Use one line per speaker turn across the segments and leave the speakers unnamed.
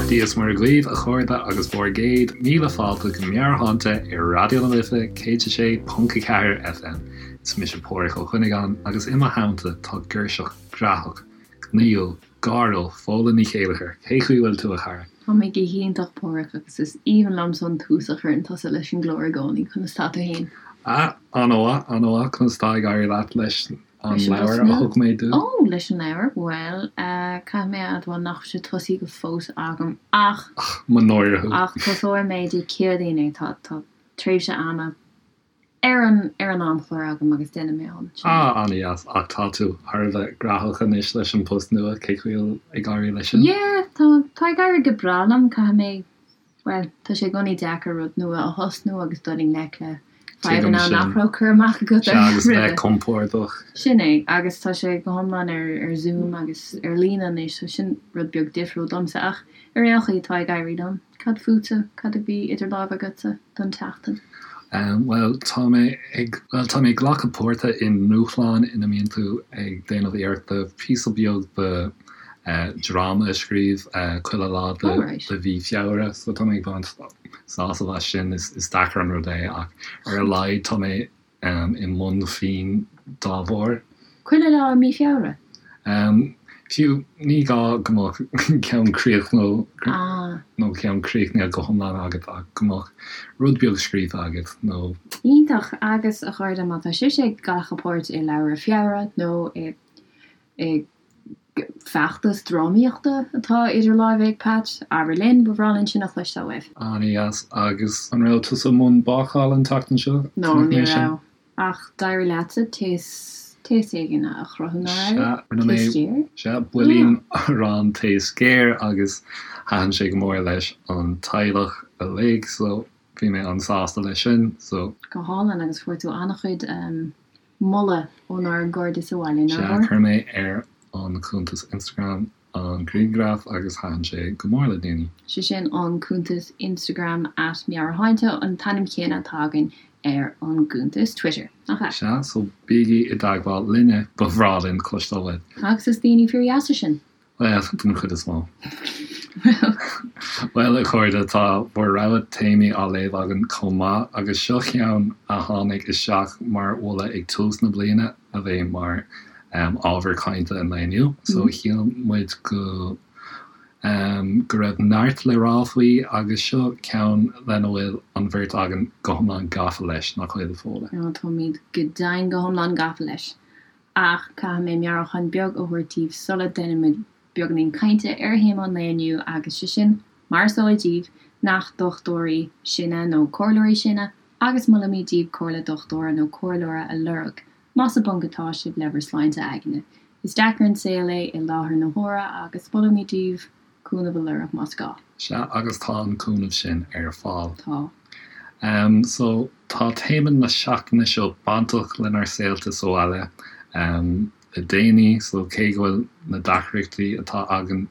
Beannacht Dia is Muire dhaoibh, a chairde, agus bhur gcéad míle fáilte go Meabhairshláinte ar Raidió na Life 106.4 FM. Is mise Páraic Ó Cuinneagáin agus i mo theannta tá girseach graitheach, gnaíúil, gáiriúil, Fódhla Ní Chéilleachair. Cé chaoi bhfuil tú, a chara?
Tá mé go hiontach, Páraic, agus is aoibhinn liomsa an tús a chuireann tusa leis an gclár i gcónaí. Conas tá tú fhéin?
Ah, an-mhaith, an-mhaith. Conas tá ag éirí leat leis an leabhar a thug mé duit?
Ó, leis an leabhar? Bhuel, caithfidh mé a admháil nach bhfuil sé tosaithe go fós agam ach.
Ach, mo náire thú.
Ach tosóidh mé Dé Céadaoin é. Tá, tá tréimhse ama ar an, ar an amchlár agam agus déanfaidh mé an.
Ah, an-dheas. Ach tá tú thar a bheith graitheach anois leis an post nua, cé chaoi a bhfuil ag éirí leis sin?
Yeah, tá, tá ag éirí go breá liom, caithfidh mé Bhuel, tá sé i gcónaí deacair rud nua a thosnú agus dul i ngleic le fadhbanna nach raibh cur amach agat
orthu roimhe. Sea, agus bheith compordach.
Sin é, agus tá sé go hiomlán ar Zoom agus ar líne anois, so sin rud beag difriúil domsa, ach ar aon chaoi, tá ag éirí liom. Cad fútsa? Cad a bhí idir lámha agatsa don tseachtain?
Bhuel, tá mé ag, bhuel, tá mé ag glacadh páirte i ndúshlán ina mbíonn tú ag déanamh iarrachta píosa beag de dráma a scríobh chuile lá de mhí Feabhra so tá mé ag baint sásamh as sin. Is deacair an rud é ach ar a laghad tá mé i mbun pinn dá bharr.
Chuile lá i mí Feabhra?
Fiú, ní gá go mbeadh ceann críochnaithe nó ceann críochnaithe go hiomlán agat ach go mbeadh rud beag scríofa agat nó.
Iontach! Agus a chairde, má tá sibhse ag glacadh páirt i Leabhar Feabhra nó i i bhfeachtas drámaíochta atá idir láimhe ag Pat, abair linn, ba bhreá linn sin a chloisteáil uaibh.
An-dheas. Agus an raibh tusa i mbun bácála an tseachtain seo?
No, ní raibh. Ach d'éirigh leatsa taos, taos éigin a chruthú, nach raibh?
Sea, rinne mé,
Taos géar?
sea, builín arán taos géar agus thaitin sé go mór leis an teaghlach uilig, so bhí mé an-sásta leis sin, so.
Go hálainn, agus fuair tú an-chuid moladh ónár gcairde sa bhaile,
nach Sea, chuir mé ar an cuntas Instagram an grianghraf agus thaitin sé go mór le daoine.
Sé sin an cuntas Instagram at Meabhairshláinte, an t-ainm céanna atá againn ar an gcuntas Twitter, nach ea?
Sea, so bígí i dteagmháil linne, ba bhreá linn cloisteáil uaibh.
Agus is daoine fíordheasa sinn.
Bhuel, den chuid is mó. Bhuel, a chairde, tá bhur rogha téamaí á léamh againn chomh maith, agus seo ceann a tháinig isteach mar mholadh ag tús na bliana a bheidh mar ábhar cainte an lae inniu. So shíl muid go go raibh neart le rá faoi, agus seo ceann lena bhfuil an bheirt againn go hiomlán gafa leis, nach bhfuil, a Fódhla?
Táimid go deimhin go hiomlán gafa leis. Ach caithfidh mé meabhrúchán beag a thabhairt daoibh sula ndéanaimid beagáinín cainte ar théama an lae inniu agus sé sin, mar is eol daoibh, nach dochtúirí sinne nó comhairleoirí sinne agus molaimid daoibh comhairle dochtúra nó comhairleora a lorg más i bponc atá sibh le bhur sláinte aigne. Is deacair an saol é i láthair na huaire agus molaimid daoibh cúnamh a lorg más gá.
Sea, agus tá an cúnamh sin ar fáil.
Tá.
Em, so, tá téama na seachtaine seo bainteach lenár saolta sa bhaile, em, le déanaí, so cé go bhfuil na deacrachtaí atá againn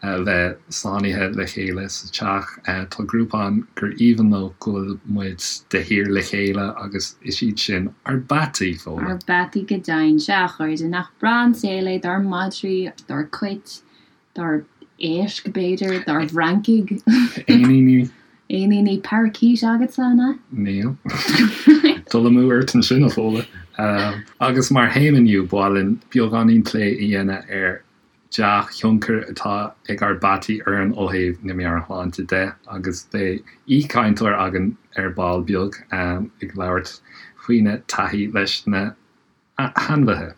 a bheith sáinnithe le chéile sa teach, eh, tá grúpa ann gur aoibhinn leo go bhfuil muid de shíor le chéile agus is iad sin ár bpeataí,
Fódhla. Ár bpeataí go deimhin. Sea, a chairde, nach breá an saol é dár madraí, dár gcait, dár éisc, b'fhéidir, dár bhfrancaigh.
Éiníní.
Éiníní parakeet agatsa, an ea?
Níl. Dul amú ort ansin, a Fhódhla. Agus mar théama inniu, ba mhaith linn beagáinín plé a dhéanamh ar dea-thionchar atá ag ár bpeataí orainn ó thaobh na meabhairshláinte de agus beidh aoichainteoir againn ar ball beag ag labhairt faoina taithí leis na hainmhithe.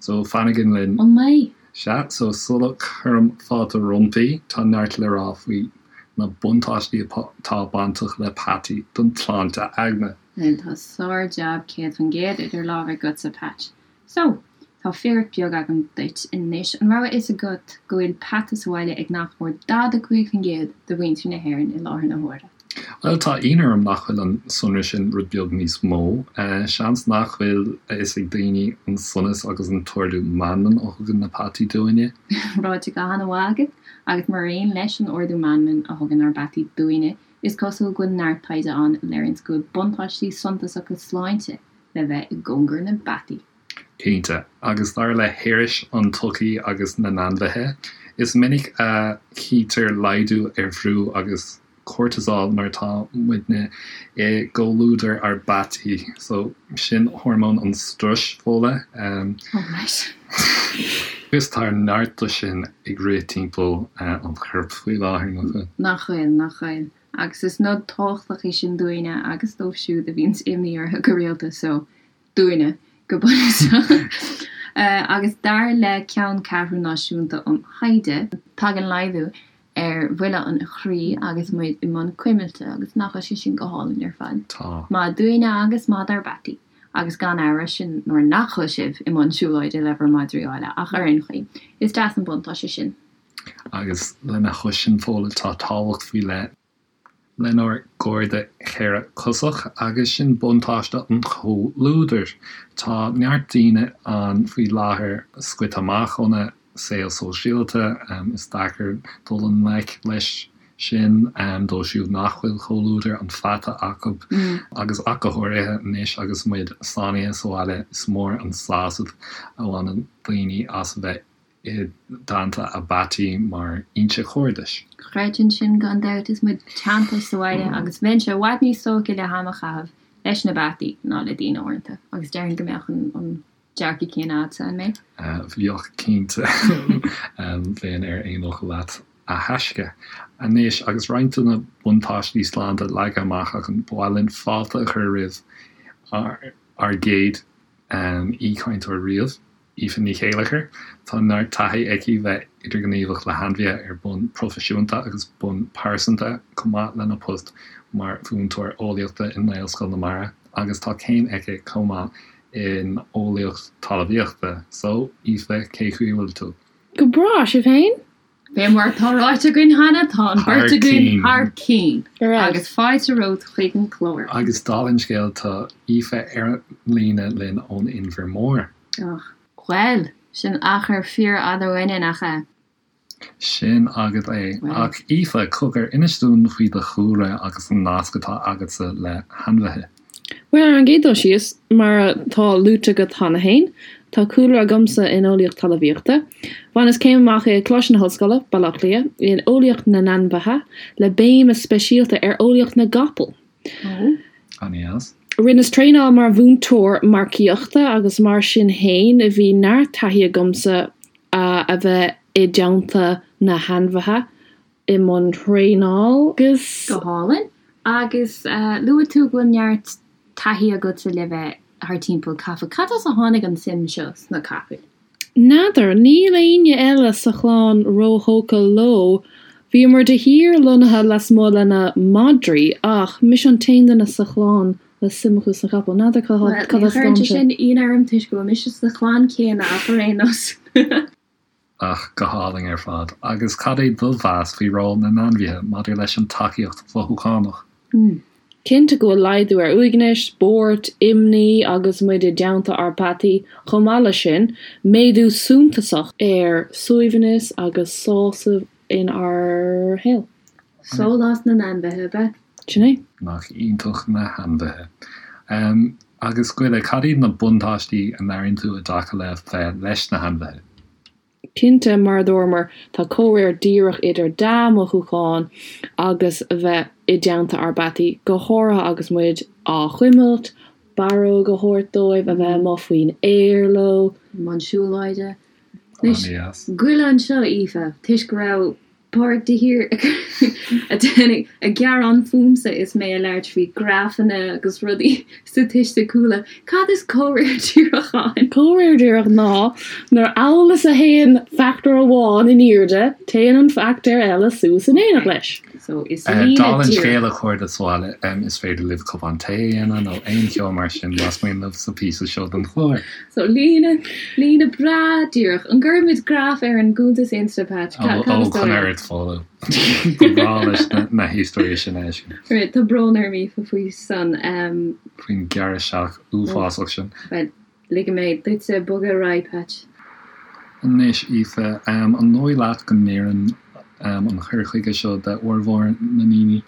So, fanaigí linn.
An mbeidh?
Sea, so sula cuirim fáilte roimpi, tá neart le rá faoi na buntáistí atá bainteach le peataí don tsláinte aigne.
Bhuel, tá sár-jab 100% idir lámha agatsa, Patch. So, tá fíric beag agam duit anois. An raibh a fhios agat go bhfuil peata sa bhaile ag nach mór 45% de mhuintir na hÉireann i láthair na huaire?
Bhuel, tá ionadh orm nach bhfuil an sonra sin rud beag níos mó. Seans nach bhfuil a fhios ag daoine an sonas agus an t-ardú meanman a thugann na peataí dúinne.
Ráite go han-mhaith agat, agus mar aon leis an ardú meanman a thugann ár bpeataí dúinne, is cosúil go bhfuil neart taighde ann a léiríonns go bhfuil buntáistí suntasacha sláinte le bheith i gcóngar na bpeataí.
Cinnte, agus dar le hIris an tSochaí agus na nAinmhithe, Is minic a chítear laghdú ar bhrú agus cortisol nuair atá muidne i gcomhluadar ár bpeataí. So, sin hormón an struis, Fódhla.
Oh right.
Agus tá neart de sin ag rith timpeall an choirp faoi láthair, nach bhfuil?
Nach bhfuil, nach bhfuil. Agus is nod tábhachtach é sin dúinne agus dóibh siúd a bhíonns imní orthu go rialta, so, dúinne, go bunúsach. Agus dar le Ceanncheathrú Náisiúnta um Thaighde, tagann laghdú ar bhuille an chroí agus muid i mbun cuimilte agus nach bhfuil sé sin go hálainn ar fad?
Tá.
Maith dúinne agus maith dár bpeataí. Agus gan amhras, sin nuair nach bhfuil sibh i mbun siúlóide le bhur madraí áille, ach ar aon chaoi, is deas an buntáiste sin.
Agus lena chois sin, Fódhla, tá tábhacht faoi leith lenár gcairde cheithre-chosach, agus sin buntáiste an chomhluadair. Tá neart daoine ann faoi láthair scoite amach óna saol sóisialta, is deacair dul i ngleic leis sin dóibh siúd nach bhfuil comhluadar an pheata acu, agus ach go háirithe anois agus muid sáinnithe sa bhaile, is mór an sásamh a bhaineann daoine as a bheith i dteannta a bpeataí mar fhoinse chairdis.
Chreidfinn sin gan dabht is muid teanntaithe sa bhaile agus bheinnse i bhfad níos tógtha le ham a chaitheamh leis na peataí ná le daoine uaireanta agus déarfainn go mbeadh an dearcadh céanna agatsa, an mbeadh?
Bheadh cinnte. Bheinn ar aon fhocal leat a thaisce. Anois agus roinnt de na buntáistí sláinte leagtha amach againn, ba mhaith linn fáilte a chur roimh ár gcéad aoichainteoir riamh. Aoife Ní Chéilleachair. Tá neart taithí aici bheith idirghníomhach le hainmhithe ar bonn proifisiúnta agus bonn pearsanta, chomh maith lena post mar mhúinteoir eolaíochta i nGaelscoil na Mara, agus tá céim aici chomh maith in Eolaíocht Talmhaíochta. So, Aoife, cé chaoi a bhfuil tú?
Go breá, sibh féin?
Fé mar atá ráite againn cheana, tá an bheirt againn thar cinn agus fáilte romhat chuig an chlár.
Agus dála an scéil, tá Aoife ar an líne linn ón Inbhear Mór.
Och, bhuel, sin achar fíorfhada uainne, nach ea?
Sin agat é. Ach Aoife, cogar, inis dúinn faoi do chúlra agus an nasc atá agatsa le hainmhithe.
Bhuel, ar an gcéad dul síos, mar atá luaite agat cheana féin, tá cúlra agamsa in Eolaíocht Talmhaíochta. Bhaineas céim amach i Coláiste na hOllscoile, Baile Átha Cliath, in Eolaíocht na nAinmhithe, le béim speisialta ar Eolaíocht na gCapall.
Ó.
An-dheas.
Rinneas traenáil mar mhúinteoir marcaíochta agus mar sin fhéin bhí neart taithí agamsa a bheith i dteannta na hainmhithe i mbun traenáil agus.
Go hálainn. Agus luaigh tú go bhfuil neart taithí agatsa le bheith thar timpeall capall. Cad as a tháinig an suim seo sna capaill?
N'fheadar. Níl éinne eile sa chlann róthógtha leo. Bhíomar de shíor lonnaithe lasmuigh lena madraí ach mise an t-aon duine sa chlann le suim acu sna capaill. N'fheadar
cad
as
a
tháinig
sé. Sé sin ionadh orm toisc go bhfuil mise sa chlann céanna ach ar aon nós.
Ach go hálainn ar fad. Agus cad é do mheas faoi ról na n-ainmhithe maidir leis an tacaíocht mhothúchánach?
Cinnte go bhfuil laghdú ar uaigneas, buairt, imní agus muid i dteannta ár bpeataí. Chomh maith leis sin, méadú suntasach ar suaimhneas agus sásamh inár shaol.
Sólás na n-ainmhithe, ab ea?
Sin é.
Nach iontach na hainmhithe. Agus Goile, cad iad na buntáistí a n-airíonn tú i dtaca le bheith leis na hainmhithe?
Cinnte, mar a dúramar, tá comhréir díreach idir dea-mhothúcháin agus a bheith i dteannta ár bpeataí, go háirithe agus muid á gcuimilt, barróg a thabhairt dóibh, a bheith amuigh faoin aer leo.
I mbun siúlóide.
Anois, An-deas.
Goile anseo, Aoife, toisc go raibh Pádraig de shíor ag gearán fúmsa is mé ag labhairt faoi grafanna agus rudaí staitistiiciúla. Cad is comhréir díreach ann?
Comhréir díreach ná nuair amhail is a théann factor amháin in airde, téann an factor eile suas in éineacht leis.
So is líne
Dála an scéil a chairde sa bhaile, is féidir libh cupán tae a dhéanamh nó aon cheo mar sin más mian libh sa phíosa seo den chlár.
So líne, líne breá díreach. An gcuirfimid graf ar an gcuntas Insta, Patch?
Ó,
Cad is dóigh
chun
leat?
oiread Fódhla. Ba bhreá leis na héisteoirí sin a fheiscint.
Right, tá brón orm Aoife faoi san.
Faoin ghearradh isteach uafásach sin.
Bhuel, ligfidh mé duitse bogadh ar aghaidh, Patch.
Anois, Aoife, an dóigh leat go n-oireann an cur chuige seo d'fhormhór na ndaoine?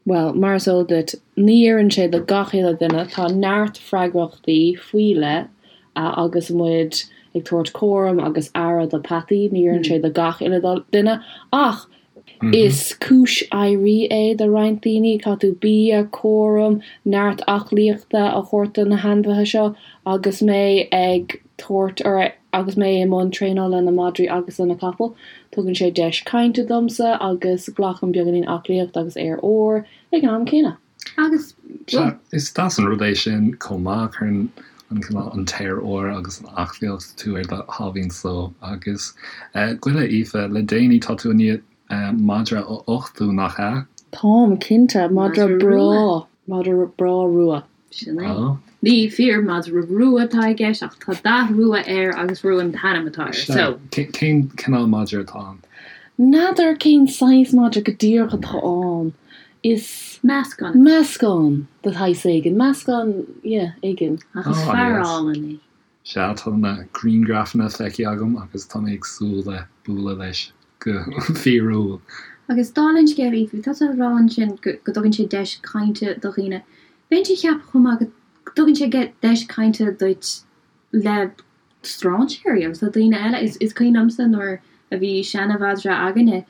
Bhuel, mar is eol duit, ní oireann sé do gach uile duine. Tá neart freagrachtaí faoi leith agus muid ag. ag tabhairt cúram agus aire do peataí, ní oireann sé do gach uile duine ach is cúis éirí é do roinnt daoine. Caithfidh tú bia, cúram, neart aclaíochta a thabhairt do na hainmhithe seo agus mé ag tabhairt or agus mé i mbun traenála le na madraí agus le na capaill. Tugann sé deis cainte domsa agus glacaim beagáinín aclaíocht agus aer úr ag an am céanna.
Agus,
bhuel. Is deas an rud é sin chomh maith, cuireann an cineál an t-aer úr agus an aclaíocht tú ar do sháimhín só. Agus goile, Aoife, le déanaí tá tú i ndiaidh madra a uchtú, nach ea?
Táim, cinnte. Madra breá. Madra breá rua.
Sin é. Ní fíor madra rua atá i gceist ach tá dath rua air agus rua an t-ainm atá air. So.
Cén cineál madra atá ann?
N'fheadar cén saghas madra go díreach atá ann. Is.
Meascán.
Meascán de shaghas éigin. Meascán, yeah, éigin.
Ach is fear álainn é.
Sea, tá na grianghrafanna feicthe agam agus tá mé ag súil le bualadh leis go fíorúil.
Agus dála an scéil, Aoife, tá tú ag rá ansin go dtugann sé deis cainte do dhaoine. Bheinnse ag ceapadh chomh maith go dtugann sé deis cainte duit le strainséirí agus le daoine eile. Is cuimhin liomsa nuair a bhí seana-mhadra againne,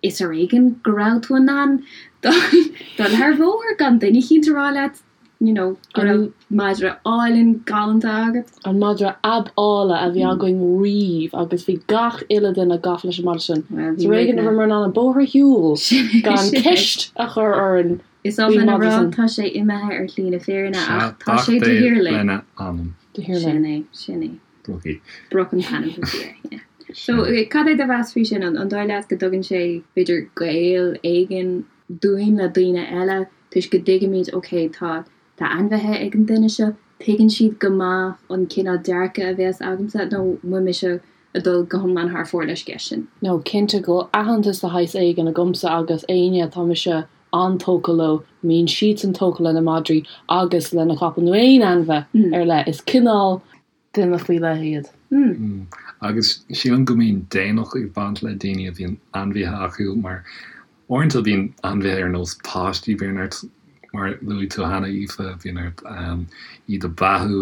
Is ar éigean go raibh tú in ann dul thar bhóthar gan duine eicínt a rá leat you know go raibh madra álainn galánta agat.
An madra ab áille a bhí againn riamh agus bhí gach uile duine gafa leis an madra sin. Is ar éigean a rabhamar in ann an bóthar a shiúl gan ceist a chur orainn
Is oth
faoin
linn a
madra
rá
sin.
tá sé imithe ar shlí na fírinne ach tá sé de shíor linn.
Lena anam.
De shíor
linn. Sin é, sin é.
Brookie.
Brook an t-ainm a bhí air, yeah. So, cad é do mheas faoi sin? An dóigh leat go dtugann sé, b'fhéidir, gaol éigin dúinn le daoine eile toisc go dtuigimid, ok, tá, tá ainmhithe ag an duine seo, tuigeann siad go maith an cineál dearcadh a bheas agamsa, nó an bhfuil mise ag dul go hiomlán thar fóir leis an gceist sin?
No, cinnte go bhfuil aitheantas de shaghas éigin agamsa agus éinne atá mise an-tógtha leo, mbíonn siadsan tógtha lena madraí agus lena capaill nó aon ainmhithe ar leith. Is cineál duine faoi leith iad.
Agus sílim go mbíonn daonnacht ag baint le daoine a bhíonn ainmhithe acu mar uaireanta bíonn ainmhithe ar nós páistí, bíonn ort, mar a luaigh tú cheana Aoife, bíonn ort iad a beathú,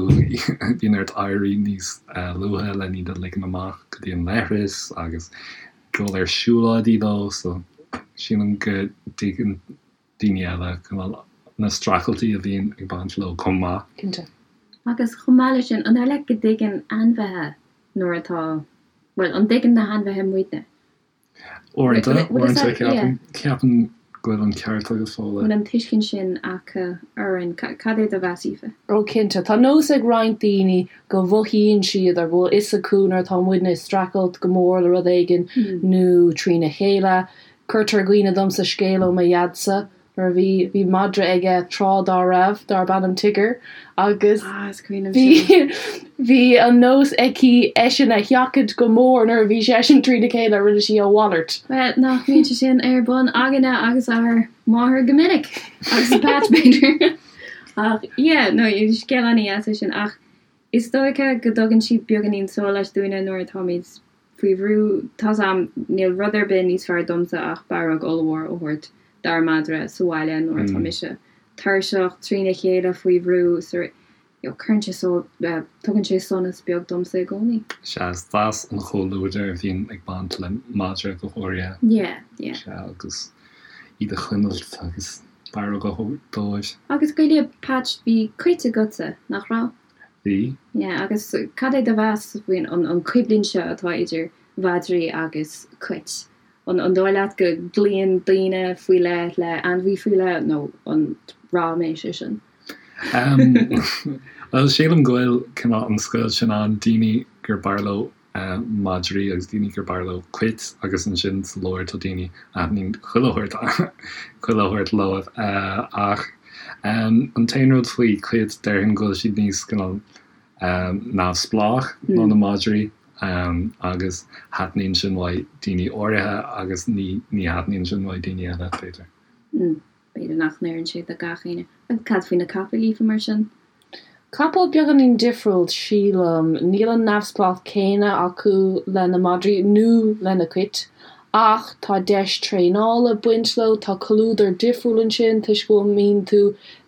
bíonn ort éirí níos luaithe len iad a ligean amach go dtí an leithreas agus dul ar siúlóidí leo so sílim go dtuigeann daoine eile cineál na streachailtí a bhíonn ag baint leo chomh maith.
Cinnte.
Agus chomh maith leis sin, an dóigh leat go dtuigeann ainmhithe nuair atá, bhuel, an dtuigeann na hainmhithe muidne?
Uaireanta, uaireanta ceapaim, ceapaim go bhfuil an ceart agat Fódhla.
Bhfuil an tuiscint sin acu orainn? Cad é do mheas, Aoife?
Ó cinnte. Tá nós ag roinnt daoine go mhothaíonn siad or go bhfuil fhios acu nuair atá muidne ag streachailt go mór le rud éigin nó trína chéile. Cuirtear i gcuimhne domsa scéal ó mo dhaidsa nuair a bhí, bhí madra aige tráth dá raibh, darb ainm Tigger, agus
Ah, is cuimhin liom
bhí,
sin.
bhí an nós aici eisean a sheachaint go mór nuair a bhí seisean trína chéile, rinne sí a mhalairt.
Bhuel, nach mbíonn sé sin ar bun againne agus ár máthair go minic! Agus Patch, b'fhéidir. Ach, yeah, no, scéal an-dheas é sin. Ach is dóiche go dtugann siad beagáinín sóláis dúinne nuair atáimid faoi bhrú. Tá's a'm, níl rud ar bith níos fearr domsa ach barróg ollmhór a thabhairt dár madra sa bhaile nuair atá mise tuirseach, trína chéile, faoi bhrú, so you know, cuireann sé só, tugann sé sonas beag domsa i gcónaí.
Sea, is deas an chomhluadar a bhíonn ag baint le madra go háirithe.
Yeah, yeah.
Sea, agus iad a chuimilt agus barróg a thabhairt dóibh.
Agus goile, Patch, bhí cait agatsa, nach raibh?
Bhí.
Yeah, agus cad é do mheas faoin an coimhlint seo atá idir mhadraí agus cait? An an dóigh leat go gcloíonn daoine faoi leith le ainmhí faoi leith nó an ráiméis é sin?
Bhuel, sílim go bhfuil cineál an scoilt sin ann, daoine gur b'fhearr leo madraí agus daoine gur b'fhearr leo cait agus ansin sa lár tá daoine a thaitníonn chuile shórt chuile shórt leo. Ach an t-aon rud faoi chait déarfainn go bhfuil siad níos cineál neamhspleách ná na madraí agus thaitníonn sin uaidh daoine áirithe agus ní ní thaitníonn sin uaidh daoine eile b'fhéidir.
B'fhéidir nach n-oireann sé do gach éinne. Agus cad faoi na capaill, Aoife, mar sin?
Capaill beagáinín difriúil, sílim. Níl an neamhspleách céanna acu le na madraí nó le na cait, ach tá deis traenála ag baint leo, tá comhluadar difriúil ansin toisc go mbíonn tú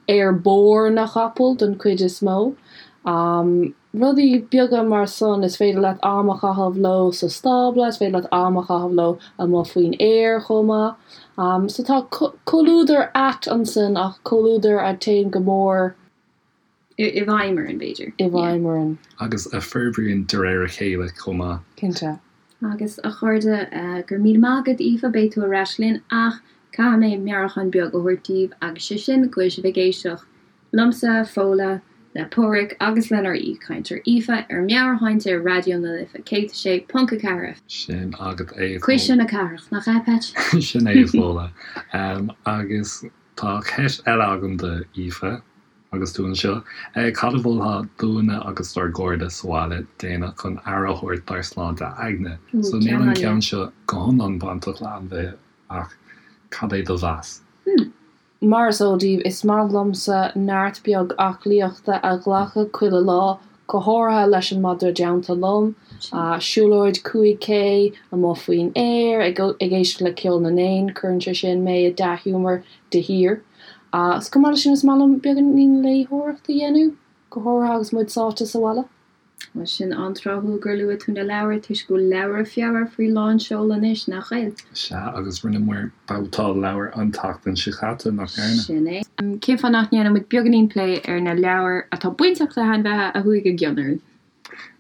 ar bord na chapall don chuid is mó. Rudaí beaga mar san, is féidir leat am a chaitheamh leo sa stábla, is féidir leat am a chaitheamh leo amuigh faoin aer chomh maith. So tá comhluadar ait ansin ach comhluadar a téann go mór.
I bhfeidhm orainn, b'fhéidir.
I bhfeidhm orainn.
Agus a forbraíonn de réir a chéile chomh maith.
Cinnte.
Agus a chairde, go raibh míle maith agat Aoife, beidh tú ar ais linn ach caithfidh mé meabhrúchán beag a thabhairt daoibh agus sé sin go bhfuil sibh ag éisteacht liomsa, Fódhla, le Páraic agus lenár aoichainteoir Aoife ar Meabhairshláinte ar Raidió na Life 106.4 FM.
Sin agat é a Fódhla.
Cuisle na cathrach, nach ea, Patch?
Sin é a Fódhla. Agus tá ceist eile agam do Aoife agus tú anseo. Cad a mholfá dúinne agus dár gcairde sa bhaile déanamh chun aire a thabhairt dár sláinte aigne? So níl an ceann seo go hiomlán bainteach le ainmhithe ach cad é do mheas?
Mar is eol daoibh, is maith liomsa neart beag aclaíochta a ghlacadh chuile lá, go háirithe leis an madra i dteannta liom. Siúlóid 5K amuigh faoin aer, ag éisteacht le ceol na n-éan, cuireann sé sin mé i dea-ghiúmar de shíor. Agus chomh maith leis sin, is maith liom beagáinín léitheoireachta a dhéanamh, go háirithe agus muid sáite sa bhaile.
Bhuel, sin an-tráthúil gur luaigh tú na leabhair toisc go bhfuil leabhra Feabhra faoi lán seol anois, nach bhfuil?
Sea, agus rinneamar babhtáil leabhar an tseachtain seo caite, nach ndearna?
Sin é. Cén fáth nach ndéanann muid beagáinín plé ar na leabhair atá bainteach le hainmhithe a chuaigh i gcion orainn?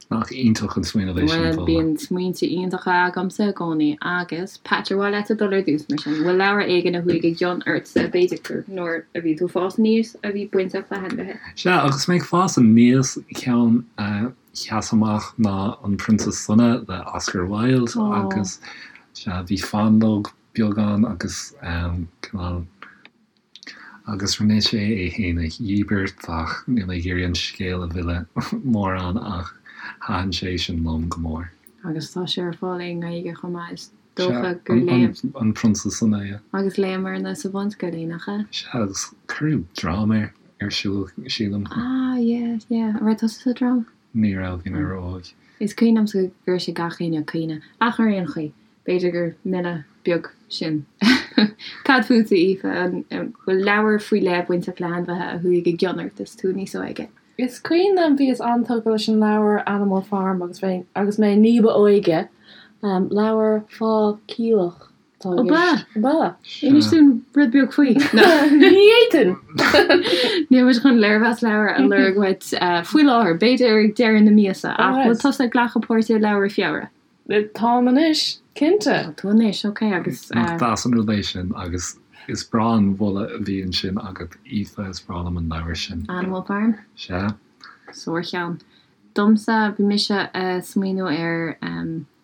Nach iontach an smaoineamh é sin,
Bhuel, bíonn smaointe iontacha agamsa i gcónaí. Agus, Patch, ar mhaith leatsa dul ar dtús, mar sin? Bhfuil leabhar éigin a chuaigh i gcion ortsa, b'fhéidir gur nuair a bhí tú ag fás aníos, a bhí bainteach le hainmhithe?
Sea, agus mé ag fás aníos, ceann a sheas amach ná An Prionsa Sona le Oscar Wilde agus, sea, bhí fáinleog beag ann agus cineál. Agus rinne sé é fhéin a dhíbirt ach níl mé ag iarraidh an scéal a mhilleadh mórán ach thaitin sé sin liom go mór.
Agus tá sé ar fáil i nGaeilge chomh maith, is dócha gur léamh.
Sea, An Prionsa Sona, yeah.
Agus léamarna sa bhunscoil é, nach ea?
Sea, agus cuireadh dráma air ar siúl, sílim.
Ah, yeah, yeah. An raibh tusa sa dráma?
Ní raibh, bhí mé ró-óg.
Is cuimhin liomsa go raibh sé gach éinne ag caoineadh, ach ar aon chaoi, B'fhéidir gur milleadh beag sin. Cad fútsa, Aoife? An bhfuil leabhar faoi leith bainteach le hainmhithe a chuaigh i gcion ort is tú níos óige?
Is cuimhin liom, bhíos an-tógtha leis an leabhar Animal Farm agus mé agus mé ní ba óige. Leabhar fá chailleach
atá i gceist. Ó ba? Inis dúinn rud beag faoi.
Ní fhéadfainn!
Níl muid chun léirmheas leabhair a lorg uait faoi láthair, b'fhéidir ag deireadh na míosa, ach bhfuil tusa ag glacadh páirte i Leabhra Feabhra?
Táim anois, cinnte.
Tá tú anois, ok, agus.
Nach deas an rud é sin, agus is breá an moladh a bhí ansin agat, Aoife, is breá liom an leabhar sin.
Animal Farm?
Sea.
Sárcheann. Domsa, bhí mise a' smaoineamh ar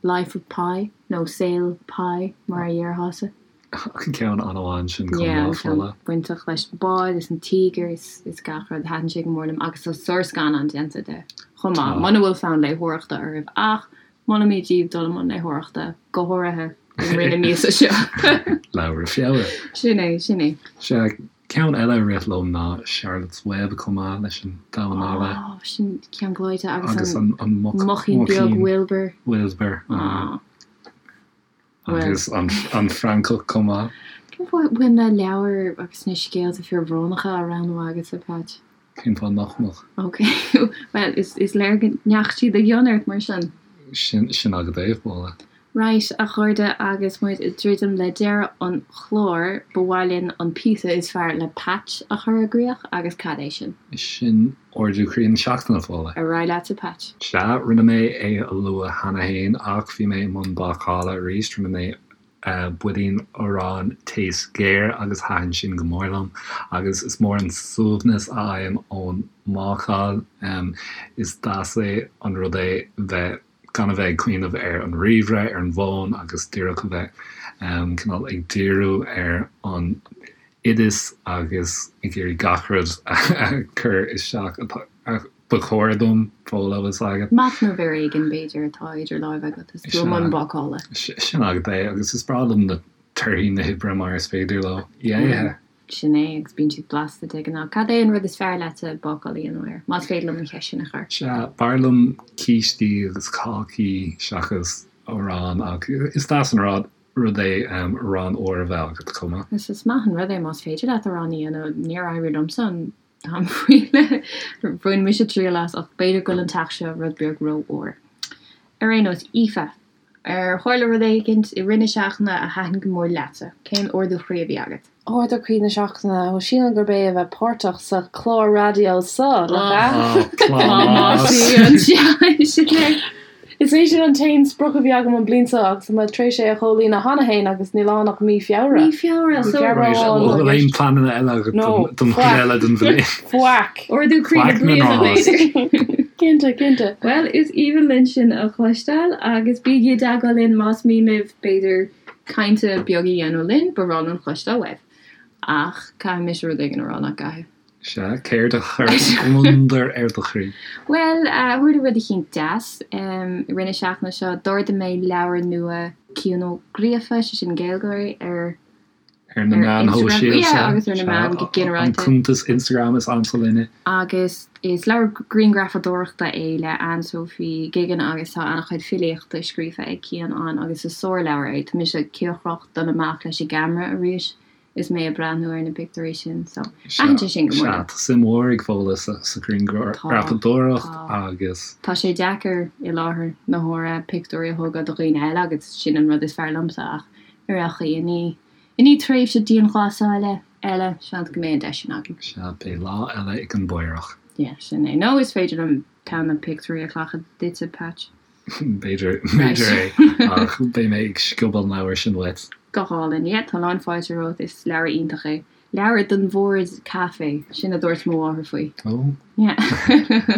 Life of Pi, nó Saol Pi, mar a dhéarfása.
An ceann an-mhaith ansin chomh maith,
Fódhla. Bainteach leis an bád is an tíogar is gach rud. Thaitin sé go mór liom agus tá sárscannán déanta de chomh maith. Muna bhfuil fonn léitheoireachta oraibh ach molaimid daoibh dul i mbun léitheoireachta, go háirithe i rith na míosa seo.
Leabhra Feabhra.
Sin é, sin é.
Sea, ceann eile a rith liom ná Charlotte's Web chomh maith leis an Damhán Alla.
Ó, sin ceann gleoite agus an muicín beag Wilbur.
Wilbur. Agus an francach chomh maith.
Cén fáth a bhfuil na leabhair agus na scéalta fíorbhrónacha á roghnú agatsa, Patch?
Cén fáth nach mbeadh?
Ok, bhuel, is léir go ndeachaigh siad i gcion ort mar sin.
Sin, sin agat é, Fódhla.
Right, a chairde, agus muid ag druidim le deireadh an chláir, ba mhaith linn an píosa is fearr le Patch a chur i gcríoch, agus cad é sin?
Sin Ardú Croí na Seachtaine, Fódhla.
Ar aghaidh leatsa, Patch.
Sea, rinne mé é a lua cheana fhéin ach bhí mé i mbun bácála arís, rinne mé buidín aráin taos géar agus thaitin sin go mór liom agus is mór an suaimhneas a fhaighim ón mbácáil. Is deas é an rud é bheith gan a bheith ag cuimhneamh ar an ríomhaire, ar an bhfón agus díreach a bheith cineál ag díriú ar an oideas agus ag iarraidh gach rud a chur isteach a ba chóir dom, Fódhla, bhfuil 's agat.
Machnamh ar éigin, b'fhéidir, atá idir láimhe agat is tú i mbun bácála.
Sin agat é, agus is breá liom na torthaí na hoibre mar is féidir leo í a ithe.
Sin é, agus bíonn siad blasta de ghnáth. Cad é an rud is fearr leatsa bácáil a dhéanamh air, más féidir liom an cheist sin a chur?
Sea, b'fhearr liom cístí agus cácaí seachas arán, ach is deas an rud rud é arán úr a bheith agat chomh maith.
Is is maith an rud é más féidir leat arán a dhéanamh. Níor éirigh liomsa an. Táim faoi le bhain mise triail as ach b'fhéidir go bhfuil an teach seo rud beag rófhuar. Ar aon nós, Aoife, ar tharla rud éigint i rith na seachtaine a thaitin go mór leatsa? Cén ardú chroí a bhí agat?
Ardú croí na seachtaine, bhuel sílim gurb é a bheith páirteach sa chlár raidió seo, nach
ea? Plámás!
Sin é.
Is é sin an t-aon sprioc a bhí agam an bhliain seo agus tá mé tar éis é a chomhlíonadh cheana féin agus níl ann ach mí Feabhra.
Mí Feabhra, so.
Right, bhfuil aon pleananna eile agat don chuid eile den bhliain?
Faic.
Ardú croí na bliana, b'fhéidir.
Cinnte, cinnte.
Bhuel, is aoibhinn linn sin a chloisteáil agus bígí i dteagmháil linn más mian libh, b'fhéidir, caint beag a dhéanamh linn, ba bhreá linn cloisteáil uaibh. Ach caithfidh mise rud éigin a rá, nach gcaithfidh?
Sea, céard a chuir gliondar ar do chroí?
Bhuel, tharla rud eicínt deas i rith na seachtaine seo. D'ordaigh mé leabhar nua Cian Ó Gríofa, sé sin Gaeilgeoir, ar
Ar na meáin
shóisialta. Yeah, agus ar na meáin go ginearálta.
An cuntas Instagram is ansa linne.
Agus is leabhar grianghrafadóireachta é le Anne-Sophie Guigan agus tá an-chuid filíochta scríofa ag Cian ann agus is sárleabhar é. Tá mise cíocrach dul amach leis an gceamara arís. is mé ag breathnú ar na pictiúirí sin so thaitin sé sin go mór
liom. Sea, tá suim mhór ag Fódhla sa ghrianghrafadóireacht agus.
Tá sé deacair i láthair na huaire pictiúirí a thógáil do dhaoine eile agus sin an rud is fearr liomsa ach ar aon chaoi i ndiaidh i ndiaidh tréimhse dianghlasála eile seans go mbeidh an deis sin agam.
Sea, beidh lá eile ag an bPaorach.
Yeah, sin é. Nó is féidir liom ceann de na pictiúirí a ghlacadh duitse, Patch.
B'fhéidir, b'fhéidir é, ach beidh mé ag sciobadh an leabhair sin uait.
Go hálainn. Yeah, tá lán fáilte romhat, is leabhar iontach é. Leabhar don bhord caife, sin a dúirt mo mháthair faoi.
Ó.
Yeah.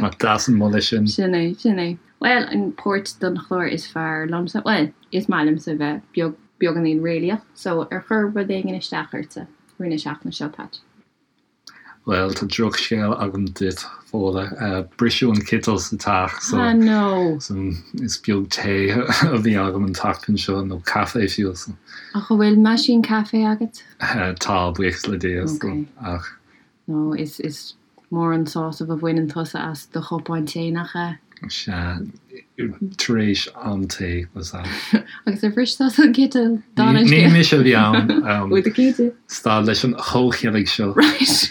Nach deas an moladh sin.
Sin é, sin é. Bhuel, an port don chlár is fearr liomsa, bhuel, is maith liomsa bheith beag, beagáinín réalaíoch, so ar chuir rud éigin isteach ortsa i rith na seachtaine seo, Patch?
Bhuel, tá drochscéal agam duit, Fódhla. Briseadh an citeal sa teach so
Ah no!
so is beag tae a bhí agam an tseachtain seo, nó caife fiú, so.
Ach an bhfuil meaisín caife agat?
Tá, buíochas le Dia, so,
Ok.
ach.
No, is, is mór an sásamh a bhaineann tusa as do chupán tae, nach ea?
Sea, tar éis am tae, was that.
Agus ar bhris tusa an citeal?
Ní ní mise a bhí ann.
Bhfuil tú cinnte?
Stad leis an chomhcheilg seo.
Right.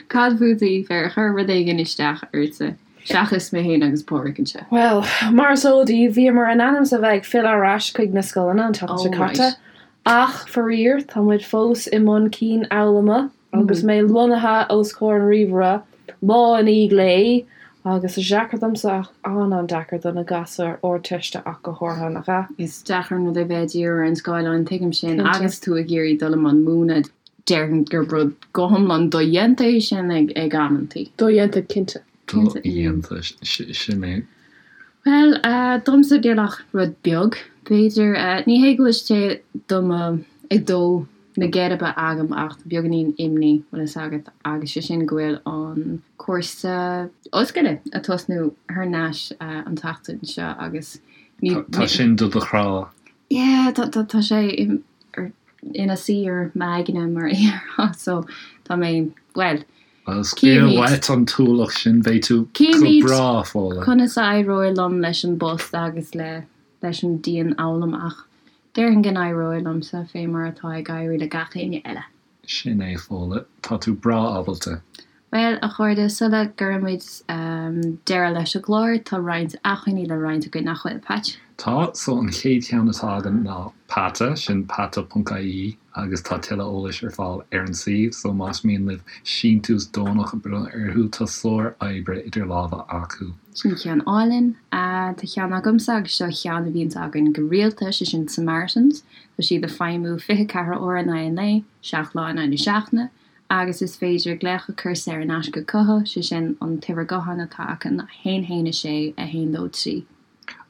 Cad fút, Aoife, ar chuir rud éigin isteach ortsa, seachas mé féin agus Pádraic anseo?
Bhuel, mar is eol daoibh, bhíomar in ainm is a bheith ag filleadh ar ais chuig na scoileanna an tseachtain seo
Oh,
caite.
right.
Ach, faraor, tá muid fós i mbun cianfhoghlama. Agus mé lonnaithe os comhair an ríomhaire lá i ndiaidh lae, agus is deacair domsa ach an-an-deacair do na gasúir Ardteiste ach go háirithe, nach ea?
Is deacair an rud é bheith ag díriú ar an scáileán, tuigim sin,
Cinnte.
agus tú ag iarraidh dul i mbun múineadh. Déarfainn gurb rud go hiomlán dodhéanta é sin ag amantaí.
Dodhéanta, cinnte.
Dodhéanta, sin é.
Bhuel, domsa níl ach rud beag, b'fhéidir. Ní hé go bhfuil sé do mo, ag dó na geirbe agam ach tá beagáinín imní, bhfuil fhios agat, agus sé sin go bhfuil an cúrsa ollscoile ag tosnú thar n-ais an tseachtain seo agus
ní. Tá sin do do chrá.
Yeah, tá, tá, tá sé ina suí ar m'aigne mar a déarfá so tá mé, bhuel,
Bhuel, scaoil uait an t-ualach sin, beidh tú go breá, Fódhla.
Cífimid conas a éireoidh liom leis an bpost agus le leis an dianfhoghlaim ach déarfainn go n-éireoidh liomsa fé mar atá ag éirí le gach éinne eile.
Sin é, Fódhla. Tá tú breá ábalta.
Bhuel, a chairde, sula gcuirimid deireadh leis an gclár, tá roinnt acmhainní le roinnt againn, nach bhfuil, Patch?
Tá. So, an chéad cheann atá againn ná Peata, sin peata.ie. agus tá tuilleadh eolais ar fáil ar an suíomh, so más mian libh síntiús deonach a bhronnadh orthu, tá sár-oibre idir lámha acu.
Sin ceann álainn. Tá ceann agamsa agus seo ceann a bhíonns againn go rialta, sé sin Samaritans. Tá siad ag feidhmiú 24 uair in aghaidh an lae, 7 lá in aghaidh na seachtaine, agus is féidir glaoch a chur saor in aisce chucu, sé sin an t-uimhir gutháin atá acu ná 1 1 6 1 2 3.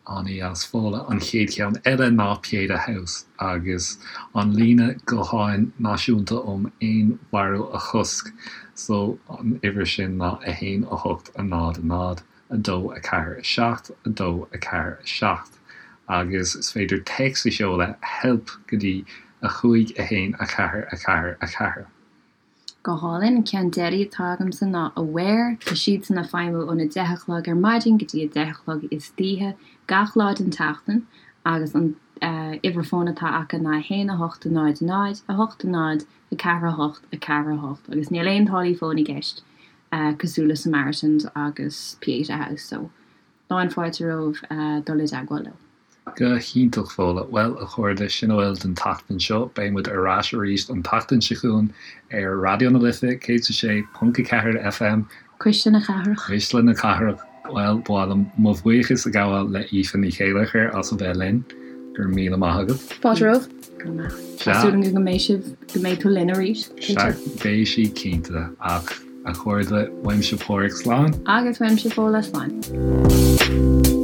An-deas, Fódhla. An chéad cheann eile ná Pieta House agus an líne gutháin náisiúnta um fhéinmharú a chosc. So an uimhir sin ná 1 8 0 0 2 4 7 2 4 7 agus is féidir téacs a sheoladh help go dtí 5 1 4 4 4.
Go hálainn. An ceann deiridh atá agamsa ná Aware. Tá siadsan ag feidhmiú óna 10 a chlog ar maidin go dtí a 10 a chlog istoíche gach lá den tseachtain agus an uimhir fóin atá acu ná 1 8 0 0 8 0 4 8 4 8 agus níl aon táillí fóin i gceist. cosúil le Samaritans agus Pieta House so lán fáilte romhaibh dul i dteagmháil leo.
Go hiontach, Fódhla. Bhuel, a chairde, sin a bhfuil don tseachtain seo. Beidh muid ar ais arís an tseachtain seo chugainn ar Raidió na Life 106.4 FM.
Cuisle na Cathrach.
Cuisle na Cathrach. Bhuel, ba mhaith liom mo bhuíochas a ghabháil le Aoife Ní Chéilleachair as a bheith linn. Go raibh míle maith agat.
Fáilte romhaibh.
Go raibh maith. Tá súil agam go mbeidh sibh, go mbeidh tú linn arís.
Sea, beidh sí cinnte. Ach, a chairde, uaimse Páraic, slán.
Agus uaimse Fódhla, slán.